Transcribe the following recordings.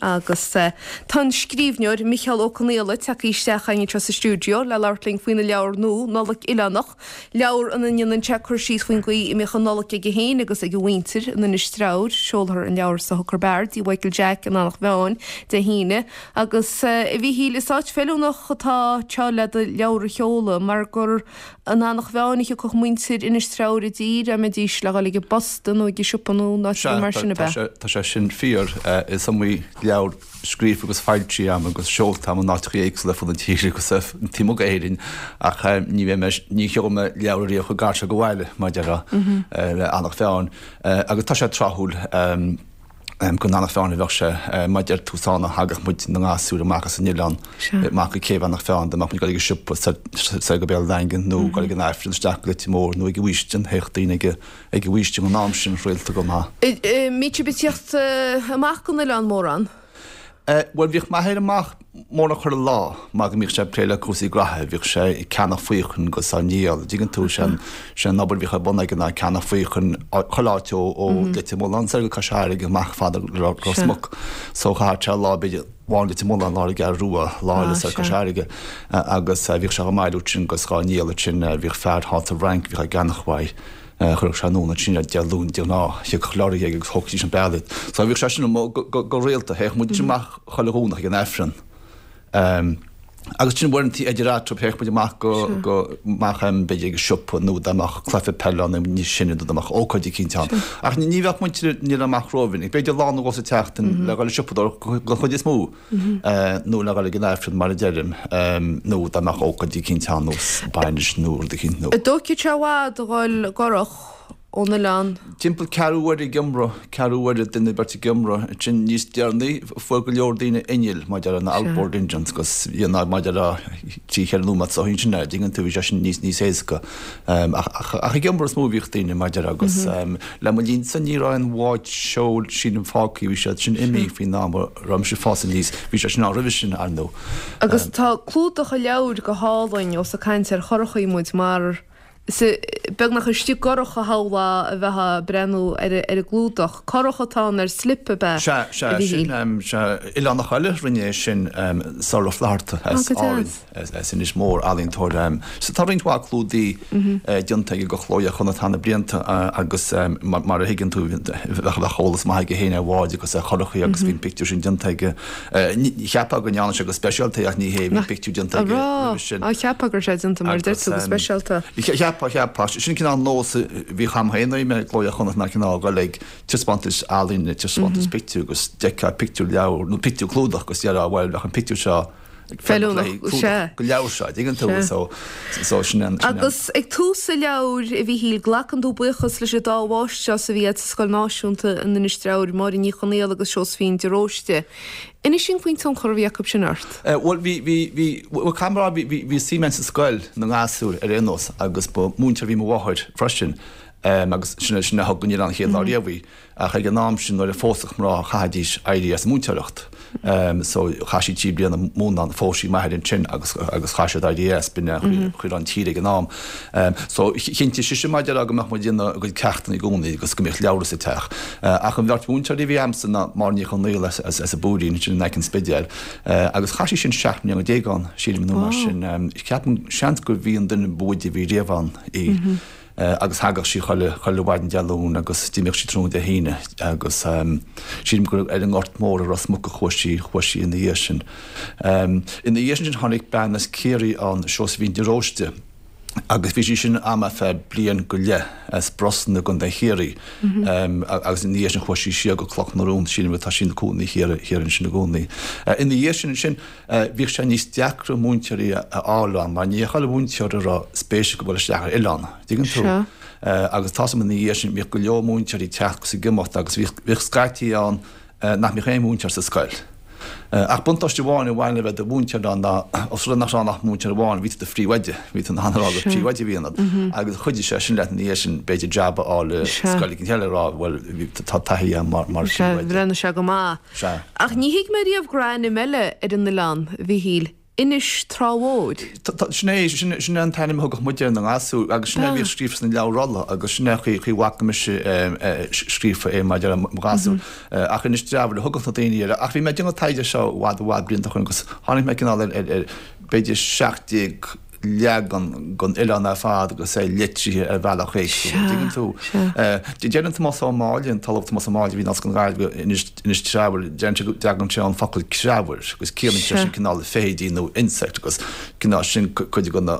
Agus tá an scríbhneoir Micheál Ó Conghaile tagtha isteach chugainn anseo sa stiúideo le labhairt linn faoina leabhar nua, Nollaig Oileánach, leabhar ina ndéanann sé cur síos faoin gcaoi a mbíodh an Nollaig aige féin agus ag a mhuintir in Inis Treabhair. Seolfar an leabhar sa Hooker Bar i dTigh Mhichael Jack in Eanach Mheáin Dé hAoine. Agus a Mhíchíl, is áit feiliúnach atá anseo le do leabhar a sheoladh mar gur In Eanach Mheáin a thiocfadh muintir Inis Treabhair i dtír dá mbeidís le dhul ag an bposta nó ag an siopa nó in áit ar bith mar sin, ab ea? Tá sé sin fíor. Is iomaí leabhar scríofa agus foilsithe agam agus seolta agam in áiteacha éagsúla ar fud na tíre agus taobh amuigh d'Éirinn ach ní bheidh mé, ní sheolfaidh mé leabhar ariamh chomh gar seo go bhaile, mar a déarfá, le Eanach Mheáin. Agus tá sé tráthúil. Go Eanach Mheáin a bheadh sé, mar a deir tú, is ann a thagadh muid na gasúir amach as an oileán, amach go céibh Eanach Mheáin, dá mbeadh muid ag dul ag an siopa soir go Béal an Daingin nó ag dul ag an Aifreann isteach go Leitir Móir nó ag an bhFaoistin, théadh daoine ag an bhFaoistin an am sin rialta go maith. Mbíodh sibh ag tíocht amach gon oileán mórán? Bhuel, bhíodh m'athair amach mórán chuile lá mar go mbíodh sé ag plé le cúrsaí graithe, bhíodh sé ag ceannach faochain agus á ndíol, an dtuigeann tú, sé an obair a bhíodh ar bun aige ná ceannach faochain chuile áit ó Leitir Mealláin soir go Cois Fharraige amach fada le Ros Muc. So chaitheadh sé lá b'fhéidir amháin i Leitir Mealláin, lá ar an gCeathrú Rua, lá eile soir Cois Fharraige agus bhíodh sé á mbailiú ansin agus dhá ndíol ansin, bhíodh fear thall sa bhFrainc a bhíodh á gceannach uaidh. Chuirfeadh sé anonn ansin iad Dé Luain de ghnáth, thiocfadh lorry aige agus thógfaidís an bealach iad. So bhíodh sé sin amuigh go rialta, théadh muid amach chuile Dhomhnach ag an Aifreann. Agus sin uaireanta idir eatarthu, théadh muid amach go, go, amach b'fhéidir ag an siopa nó dá mbeadh cluiche peile ann níos sine nó dá mbeadh ócáid eicínt ann. Ach ní bheadh muintir an oileáin amach rómhinic, b'fhéidir lá nó dhó sa tseachtain le dhul ag siopadóireacht den chuid is mó. nó le dhul ag an Aifreann mar a deirim, nó dá mbeadh ócáid eicínt ann nós bainis nó rud eicínt nó. An dtógfadh sé i bhfad a dhul i gcurach ón oileán? Timpeall ceathrú uaire ag iomramh, ceathrú uaire duine beirt ag iomramh. Ansin níos deireanaí fuair go leor daoine innill, mar a déarfá na outboard engines agus dhéanamh mar a déarfá trí cheithre nóiméad sa sin an dtuigeann tú bhí sé sin níos níos éasca. Ach ach ag iomramh is mó a bhíodh daoine mar a déarfá agus le mo linnsa ní raibh aon bhád seoil sílim fágtha, bhí siad sin imithe faoin am a raibh mise ag fás aníos. Bhí sé sin ann roimhe sin, ar ndóigh. Agus tá clúdach an leabhair go hálainn, ós ag caint ar churachaí muid, mar is beagnach istigh i gcurach a shamhlófá a bheifeá ag breathnú ar an gclúdach. Curach atá ann ar slip, ab ea, Sea, sea, sin, sea, oileánach eile a rinne é sin, Sorlagh Ó Flatharta as Árainn. As Inis Mór, ealaíontóir. So tá roinnt mhaith clúdaí déanta aige do Chló Iar-Chonnacht thar na blianta agus mar a thuigeann tú bheadh eolas maith aige féin ar bháid agus ar churachaí agus bhí an pictiúr sin déanta aige. Cheapfá go ndearna sé go speisialta é ach ní hé, bhí pictiúr déanta aige roimhe sin. Á, cheapfá go raibh sé déanta mar a deir tú go speisialta. Cheapfá, cheapfá. Sin cineál nós a bhíodh a'm féin nuair a bhí mé i gCló Iar-Chonnacht ná cineál a dhul ag taispeántais ealaíne, taispeántais pictiúr agus d'fheicfeá pictiúr leabhar nó pictiúr clúdach agus déarfá bhuel bheadh an pictiúr seo Feiliúnach, sea. Don leabhar seo, dtuigeann tú, so, so sin an, sin an. Agus ag tús an leabhair, a Mhíchíl, glacann tú buíochas leis an dá mháistreás a bhí agat sa Scoil Náisiúnta in Inis Treabhair, Máire Ní Chonaola agus Seosaimhín de Róiste. Inis dúinn faoin tionchar a bhí acu sin ort. Bhuel, bhí, bhí, bhí, bhuel, caithfidh mé a rá, bhí, bhí, bhí suim agam sa scoil na ngasúr ar aon nós agus ba mhúinteoir a bhí i mo mháthair freisin agus sin, sin a thug go an chéad lá riamh í. Ach ag an am sin nuair a phósfadh mná chaithfidís éirí as an múinteoireacht. So chaith sí 3 bliana ag múineadh, phós sí m'athair ansin agus agus chaith siad éirí as, b'in é an chaoi a raibh an tír ag an am. So chinntigh sise mar a déarfá go mbeadh muid ag déanamh ár gcuid ceachtanna i gcónaí agus go mbeadh leabhra sa teach. Ach an bheirt mhúinteoirí a bhí a'msa ná Máire Ní Chonaola as as an bPúirín ansin in aice an Spidéil agus chaith sí sin 17 mbliana ann sílim nó mar sin. Ceapaim seans gurbh í an duine ba mhoide a bhí riamh ann í. agus thagadh sí chuile, chuile mhaidin Dé Luain agus d'imíodh sí tráthnóna Dé hAoine agus sílim gur ar an nGort Mór i Ros Muc a chuaigh sí, chuaigh sí ina dhiaidh sin. Ina dhiaidh sin tháinig bean as Ciarraí ann, Seosaimhín de Róiste, agus bhí sí sin a'm ar feadh bliain go leith as Brosna i gContae Chiarraí agus ina dhiaidh sin chuaigh sí siar go Cloch na Rón, sílim tá sí ina cónaí thiar, thiar ansin i gcónaí. Ina dhiaidh sin ansin Bhíodh sé níos deacra múinteoirí a fháil ann mar ní chuile mhúinteoir a raibh spéis acu dul isteach ar oileán, dtuigeann tú? Agus tá's a'm ina dhiaidh sin bhíodh go leor múinteoirí ag teacht agus ag imeacht agus bhíodh scaití ann nach mbeadh aon mhúinteoir sa scoil. Ach buntáiste amháin a bhain le bheith i do mhúinteoir ann ná os rud é nach raibh ann ach múinteoir amháin, bhí tú i do phríomhoide, bhí tú in ann a rá gur príomhoide a bhí ionat agus chuidigh sé sin leat ina dhiaidh sin b'fhéidir jab a fháil i scoil éigin eile a rá bhuel tá taithí agam mar phríomhoide. Bhreathnaigh sé go maith. Sea. Ach ní thuig mé riamh go raibh ainm eile ar an oileán, a Mhíchíl. Inis Trá Mhóir. Sin é, sin é an t-ainm a thugadh muide ar na gasúir agus sin é a bhíodh scríofa sna leabhair rolla agus sin é an chaoi a bhfaca mise scríofa é maidir le mo ghasúir. Ach Inis Treabhair a thugadh na daoine air. Ach bhí mé ag déanamh taighde seo i bhfad i bhfad blianta ó shin agus tháinig mé cineál ar b'fhéidir 17 leagan den oileán ar fad agus é litrithe ar bhealach éagsúil, an dtuigeann tú? Deireann Tomás Ó Máille, an tOllamh Tomás Ó Máille a bhí in Ollscoil na Gaillimhe, Inis, Inis Treabhair, deireann sé go dtagann sé ón focal creabhair agus ciallaíonn sé sin cineál feithidí nó insect agus cineál sin cuid de na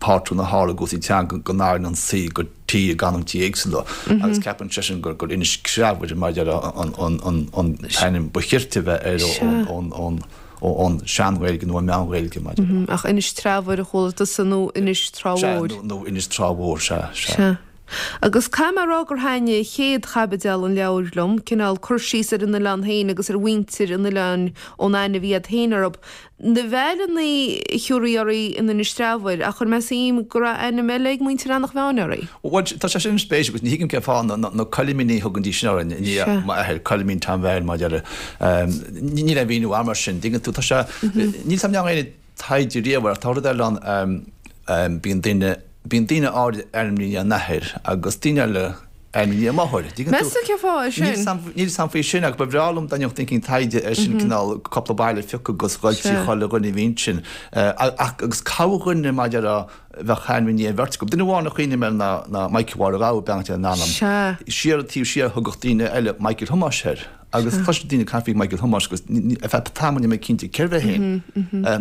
pátrúin a tharla i gcúrsaí teanga go n-athraíonn an C go T i gcanúintí éagsúla agus ceapann seisean gur gur Inis Creabhair mar a déarfá an an an an t-ainm ba chirte a bheith air ón ón ón Sean-Ghaeilge nó an Meán-Ghaeilge mar a déarfá. Ach Inis Treabhair a chuala tusa nó Inis Trá Mhór? Sea, nó Inis Trá Mhór, sea, sea. Sea. Agus caithfidh mé a rá gur thaitnigh chéad chaibideal an leabhair liom, cineál cur síos ar an oileán féin agus ar mhuintir an oileáin ón aithne a bhí a'd féin orthu. Na veaileannaí a thiúrfaí oraibh in Inis Treabhair, ach chuir mé suim go raibh ainm eile ag muintir Eanach Mheáin oraibh. Bhuel, tá sé sin spéisiúil agus ní thuigim cén fáth na Coilimíní a thugaidís sin orainn, i ndiaidh m'athair, Coilimín Tom Bheairtle mar a déarfá. Níl aon mhíniú agam air sin, dtuigeann tú, tá sé, níl 's a'm an ndearna éinne taighde riamh air ach tá rud eile ann, bíonn duine, bíonn daoine áirid ainmnithe i ndiaidh a n-athair agus daoine eile ainmnithe i ndiaidh a máthair. Dtuigeann tú? Meas tú cén fáth é sin? Níl 's a'm faoi sin ach ba bhreá liom dá ndéanfadh duine éicint taighde air sin, cineál cúpla baile a phiocadh agus dhul trí chuile dhuine a bhí ansin. Ach agus corrdhuine mar a déarfá a bheadh ainm i ndiaidh an bheirt acu. Duine amháin a chuimhním air ná ná Michael Mháire Ghabha, beannacht Dé lena anam. Siar taobh siar thugadh daoine eile Michael Thomáis air. Agus chloiseadh daoine ag caint faoi Michael Thomáis agus ar feadh tamaill ní raibh mé cinnte cérbh é féin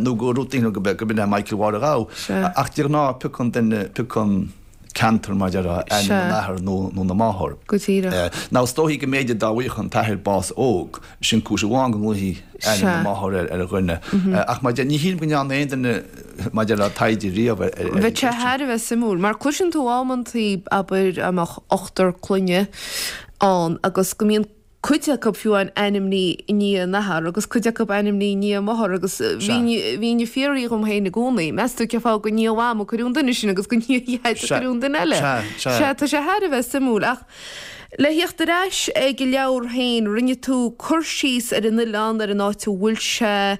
nó go raibh daoine gurb in é Michael Mháire Ghabha. Ach de ghnáth piocann duine, piocann ceantar mar a déarfá, ainm an athar nó na máthar. Go díreach. Now is dóichí go mb'fhéidir dá bhfaigheadh an t-athair bás óg, sin cúis amháin go nglaofaí ainm na máthar ar dhuine. Ach mar a deir, ní shílim go ndearna aon duine mar a déarfá taighde riamh ar an Bheadh sé thar a bheith suimiúil, mar cloiseann tú amantaí, abair, dá mbeadh ochtar clainne ann agus go mbíonn cuid acu fiú amháin ainmnithe i ndiaidh a n-athar agus cuid acu ainmnithe i ndiaidh a máthar agus bhínn ag fiafraí dhom féin i gcónaí, meas tú cén fáth gur i ndiaidh Mham a cuireadh an duine sin agus gur i ndiaidh Dhaid a cuireadh an duine eile? Sea, tá sé thar a bheith suimiúil. Ach le thíocht ar ais ag an leabhar féin, rinne tú cur síos ar an oileán, ar an áit a bhfuil sé,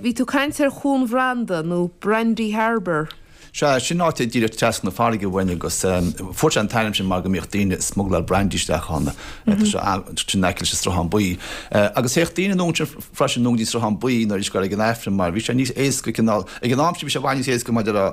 bhí tú ag caint ar Chuan Bhranda nó Brandy Harbour. Sea, sin áit díreach trasna na farraige uainn agus fuair sé an t-ainm sin mar go mbíodh daoine ag smugláil brandy isteach ann. Tá sé sin in aice leis an Sruthán Buí. Agus théadh daoine anonn ansin freisin anonn go dtí an Sruthán Buí nuair a bhí siad ag dul ag an Aifreann mar bhí sé níos éasca cineál, ag an am sin bhí sé i bhfad níos éasca maidir le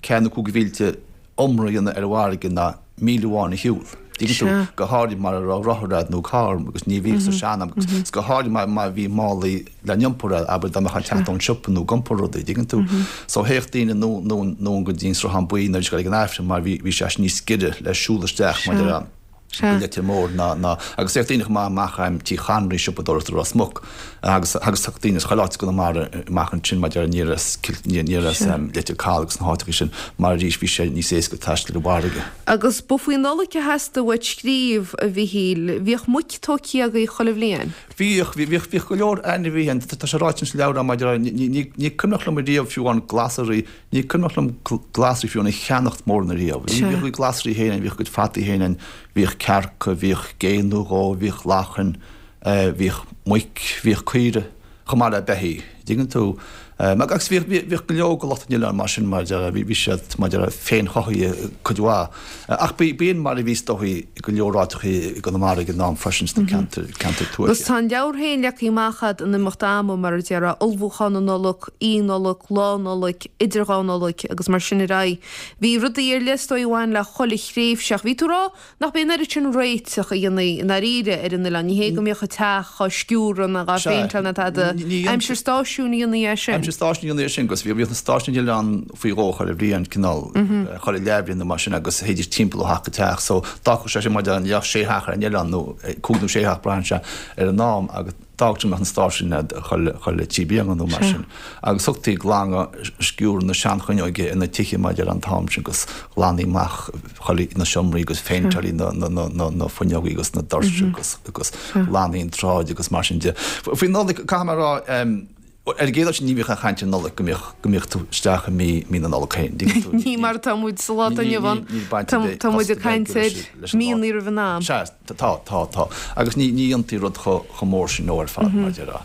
ceathair nó cúig mhílte iomramh a dhéanamh ar an bhfarraige ná míle amháin a shiúl. Dtuigeann tú? Go háirid mara raibh rothar a'd nó carr agus ní bhíodh sa sean-am agus go háirid má má bhí málaí le n-iompar a'd, abair dá mbeifeá ag teacht ón siopa nó ag iompar rudaí, dtuigeann tú? So théadh daoine anonn go dtí an Sruthán Buí nuair a bhí siad ag dul ag an Aifreann mar bhí bhí sé níos giorra le siúl isteach mar a go Leitir Móir ná ná agus théadh daoine chomh maith amach em Tí Chonraí siopadóireacht i Ros Muc agus agus théadh daoine as chuile áit i gConamara amach ansin mar aniar as aniar as em Leitir Caladh agus na háiteacha sin mar arís bhí sé níos éasca taisteal ar an bhfarraige. Agus ba faoi Nollaig a theastaigh uait scríobh, a Mhichíl. Bhíodh muic tógtha agaibh chuile bhliain? Bhíodh, bhíodh, bhíodh go leor ainmhithe ann. Tá sé ráite sa leabhar agam maidir le, ní, ní, ní cuimhneach liom ariamh fiú amháin glasraí, Ní cuimhneach liom glasraí fiú amháin a cheannacht mórán ariamh. Bhíodh a gcuid glasraí féin ann, bhíodh a gcuid fataí féin ann, bhíodh cearca, bhíodh gé nó dhó, bhíodh lachain, bhíodh muic, bhíodh caoire, chomh maith le beithígh. Dtuigeann tú? Agus bhíodh, bhíodh go leor de lucht an oileáin mar sin, mar a déarfá, bhí siad, mar a déarfá, féinchothaithe cuid mhaith. Ach b'in mar a bhí is dóichí i go leor áiteachaí i gConamara ag an am freisin sna ceantair, ceantair tuaithe. Agus tá an leabhar féin leagtha amach a'd in imeacht ama, mar a déarfá, ullmhúchán na Nollag, Oíche Nollag, Lá Nollag, idir dhá Nollaig agus mar sin ar aghaidh. Bhí rudaí ar leith is dóigh a bhain le chuile thréimhse ach bhí tú ag rá nach b'é an oiread sin réiteach a dhéantaí i ndáiríre ar an oileán. Ní hé go mbíodh an teach á sciúradh ná á phéinteáil ná tada. Aimsir stáisiúin a dhéantaí é sin. Aimsir stáisiúin a dhéantaí é sin agus bhíodh na stáisiúin ar an oileán faoi dhó chuile bhliain, cineál chuile leathbhliain nó mar sin agus théidís timpeall ó theach go teach so d'fhágfadh sé sin mar a déarfá sé theach ar an oileán nó cúig nó sé theach braitheann sé ar an am agus D'fhágfadh go mbeadh na stáisiúin a'd chuile thrí bliana nó mar sin. Agus thugtaí glanadh sciúradh na seanfhuinneoige ar na tithe mar a déarfá an t-am sin agus ghlantaí amach chuile na seomraí agus phéinteáiltí na na na na fuinneogaí agus na doirse agus agus ghlantaí an tsráid agus mar sin de. Faoi Nollaig, caithfidh mé a rá, Ar an gcéad dul síos ní bhíodh aon chaint ar Nollaig go mbeadh, go mbeadh tú isteach i mí, mí na Nollag féin. Dtuigeann tú? Ní mar atá muid sa lá atá inniu ann. Níl baint ar bith, Tá muid ag caint ar míonna roimh an am. Sea, tá, tá, tá. Agus ní, ní dhéantaí rud chomh, chomh mór sin nó ar fad, mar a déarfá.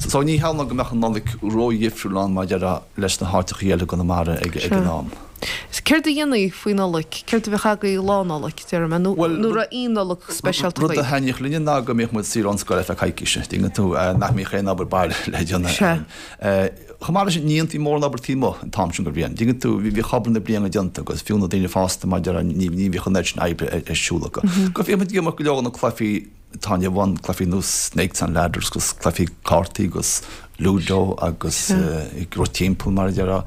So ní shamhlóinn go mbeadh an Nollaig ródhifriúil ann, mar a déarfá, leis na háiteachaí eile i gConamara ag, ag an am. Céard a dhéanaí faoi Nollaig? Céard a bheadh agaibh Lá Nollag, déarfaidh mé, nó an raibh aon Nollaig speisialta Rud a agaibh? thaitníodh linne ná go mbíodh muid saor ón scoil ar feadh coicíse, dtuigeann tú, nach mbíodh aon obair baile le déanamh Sea. Chomh maith leis sin, ní dhéantaí mórán obair taobh amuigh an t-am sin den bhliain, dtuigeann tú, bhíodh obair na bliana déanta agus fiú na daoine fásta mar a déarfá, ní bhíodh an oiread sin oibre ar siúl acu. Go bhíodh muid ag imirt go leor de na cluichí atá inniu ann, cluichí ar nós Snakes and Ladders agus cluichí cártaí agus Ludo agus ag rith timpeall mar a déarfá.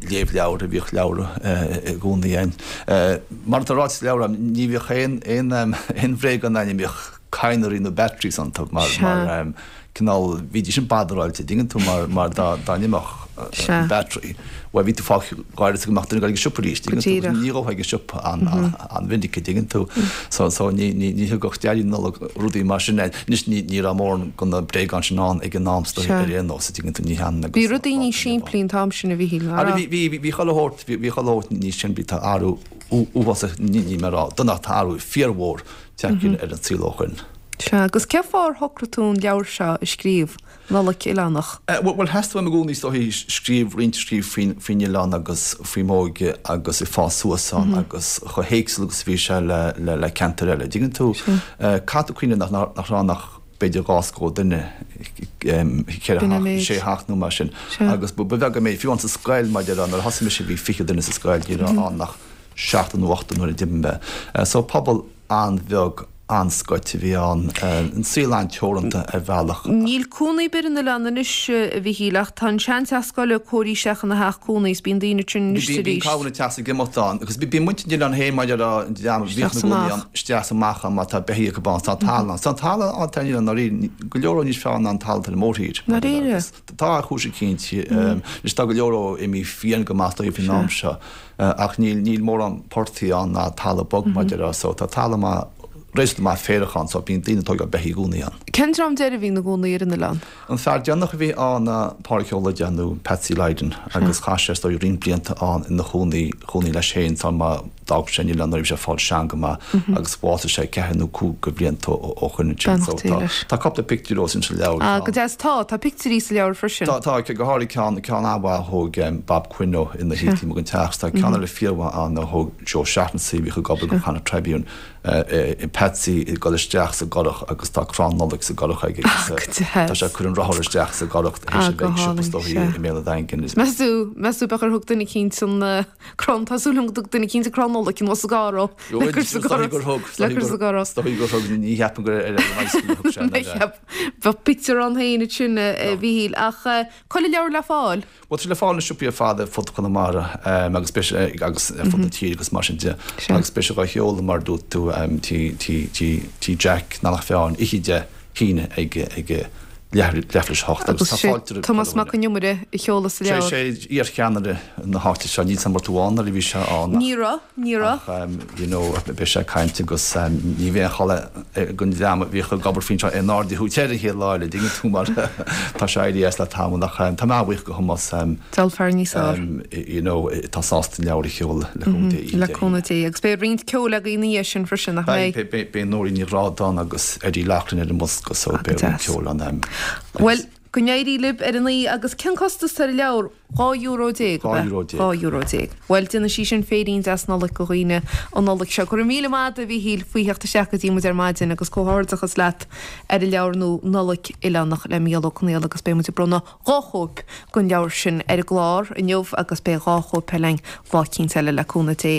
Léamh leabhar, bhíodh leabhra i gcónaí ann. Mar atá ráite sa leabhar, ní bhíodh aon aon bhréagán ann a mbíodh cadhnraí nó batteries iontu mar cineál, bhídís sin badaráilte, dtuigeann tú, mar mar dá dá n-imeodh an battery, bhuel bhí tú fágtha gáire go mbeadh duine ag dul ag an siopa arís, dtuigeann tú, agus ní ghabhfá ag an siopa an-mhinic, dtuigeann tú. So so ní ní ní thugadh Daidí Nollag rudaí mar sin air. Anois ní ní raibh mórán de na bréagáin sin ann ag an am sa ar aon nós, dtuigeann tú, ní hionann agus Bhí rudaí níos simplí an t-am sin a Mhíchíl, nach raibh? Bhí bhí bhí chuile shórt bhí chuile shórt níos simplí, tá athrú uafásach, ní ní mé a rá, dona ach tá athrú fíormhór tagtha ar an saol ó shoin. Sea, agus cén fáth ar shocraigh tú an leabhar seo a scríobh, Nollaig Oileánach? Bhuel, theastaigh uaim i gcónaí is dóichí scríobh, roinnt a scríobh faoin, faoin oileán agus faoi m'óige agus ag fás suas ann agus chomh héagsúil agus a bhí sé le, le, le ceantair eile. Dtuigeann tú? Caithfidh tú cuimhneamh nach, nach raibh ann ach b'fhéidir 2 scór duine, 4 theach, 6 theach nó mar sin. Agus ba bheag an méid, fiú amháin sa scoil, mar a déarfá, nuair a thosaigh mise bhí 20 duine sa scoil, ní raibh ann ach seachtar nó ochtar nuair a d'imigh mé. So pobal an-bheag, an-scoite a bhí ann, an saol an-teoranta ar bhealach. Níl cónaí ar bith ar an oileán anois, a Mhichíl, ach tá an seanteach scoile cóirithe isteach ina theach cónaí is bíonn daoine ansin anois is arís. Bíonn cabhair ag teacht is ag imeacht ann agus bíonn muintir an oileáin féin mar a déarfá, an dream a bhíodh ina gcónaí ann, isteach is amach ann mar tá beithígh acu ann. Tá talamh ann. Tá an talamh ann ar an oileán ndáiríre, go leor níos fearr ná an talamh ar an mórthír. Ndáiríre? Tá ar chúis eicínt. Anois tá go leor dhó imithe fiáin go maith dóibh faoin am seo. Ach níl, níl mórán portaigh ann ná talamh bog mar a déarfá so tá talamh maith, réasúnta maith féarach ann so bíonn daoine ag tógáil beithígh i gcónaí ann. Cén dream deiridh a bhí ina gcónaí ar an oileán? An fear deireanach a bhí ann ná Pádraig Ó Loideáin nó Patsy Lydon agus chaith sé is dóigh roinnt blianta ann ina chónaí, chónaí leis féin sula má d'fhág sé an oileán nuair a bhí sé ag fáil sean go maith agus bhásaigh sé ceathair nó cúig de bhlianta ó shoin ansin so Beannacht Dé tá, leis. tá cúpla pictiúr dhó sin sa leabhar. Ah, go deas. Tá, tá pictiúirí sa leabhar freisin. Tá, tá, go háirithe ceann, ceann an-mhaith a thóg Bob Quinn ó ina shuí taobh amuigh den teach. Tá ceann eile fíormhaith ann a thóg Joe Shaughnessy a bhíodh ag obair do Connacht Tribune, Patsy ag dul isteach sa gcurach agus tá crann Nollag sa gcurach aige agus Ah, go deas. tá sé ag cur an rothar isteach sa gcurach théis Ah, a go bheith ag siopa hálainn, is dóichí sea. i mBéal an Daingin. Meas tú, meas tú b'fhéidir gur thug duine eicínt an crann, tá súil agam go dtug duine eicínt an crann Nollag anuas sa gcarr ó, le cur sa gcurach, le cur sa gcurach. Is dóichí gur thug, ní cheapaim gur ar an bicycle a thug sé Ní cheap, bheadh pictiúr ann féin ansin a Mhichíl, ach cá bhfuil an leabhar le fáil? Bhuel, tá sé le fáil sna siopaí ar fad ar fud Chonamara agus beidh sé agus ar fud na tíre agus mar sin de. Agus beidh sé dhá sheoladh mar a dúirt tú tí Jack i nDomhnach Fearn oíche Dé hAoine ag ag leathuair tar éis a hocht agus tá fáilte roimh Tomás Mac Con Iomaire a sheolas an leabhar. Sé iarcheannaire na háite seo, níl 's a'm an raibh tú ann nuair a bhí sé ann ach Ní raibh, ní raibh. Ach you know beidh sé ag caint agus ní bheidh aon chall ag an dream a bhíodh ag obair faoin seo aon aird a thabhairt air an chéad lá eile, dtuigeann tú mar tá sé éirithe as le tamall ach tá mé an-bhuíoch do Thomás Deabhal fear níos fearr. you know atá sásta an leabhar a sheoladh le cúnamh Dé oíche Le cúnamh Dé. Agus beidh roinnt ceoil agaibh ina dhiaidh sin freisin, nach mbeidh? Beidh, beidh Nóirín Ní Ghrádáin agus Eddie Loughlin ar an mbosca so beidh roinnt ceoil ann. Bhuel, go n-éirí libh ar an oíche agus cén costas ar an leabhar? €12 ab ea? €12. €12. Bhuel, déanfaidh sí sin féirín deas Nollag do dhaoine an Nollaig seo. Go raibh míle maith agat, a Mhíchíl, faoi theacht isteach go dtí muid ar maidin agus comhghairdeachas leat ar an leabhar nua Nollaig Oileánach le Mícheál Ó Conghaile agus beidh muid ag bronnadh 2 chóip den leabhar sin ar an gclár inniu agus beidh 2 chóip eile againn lá eicínt eile le cúnamh Dé.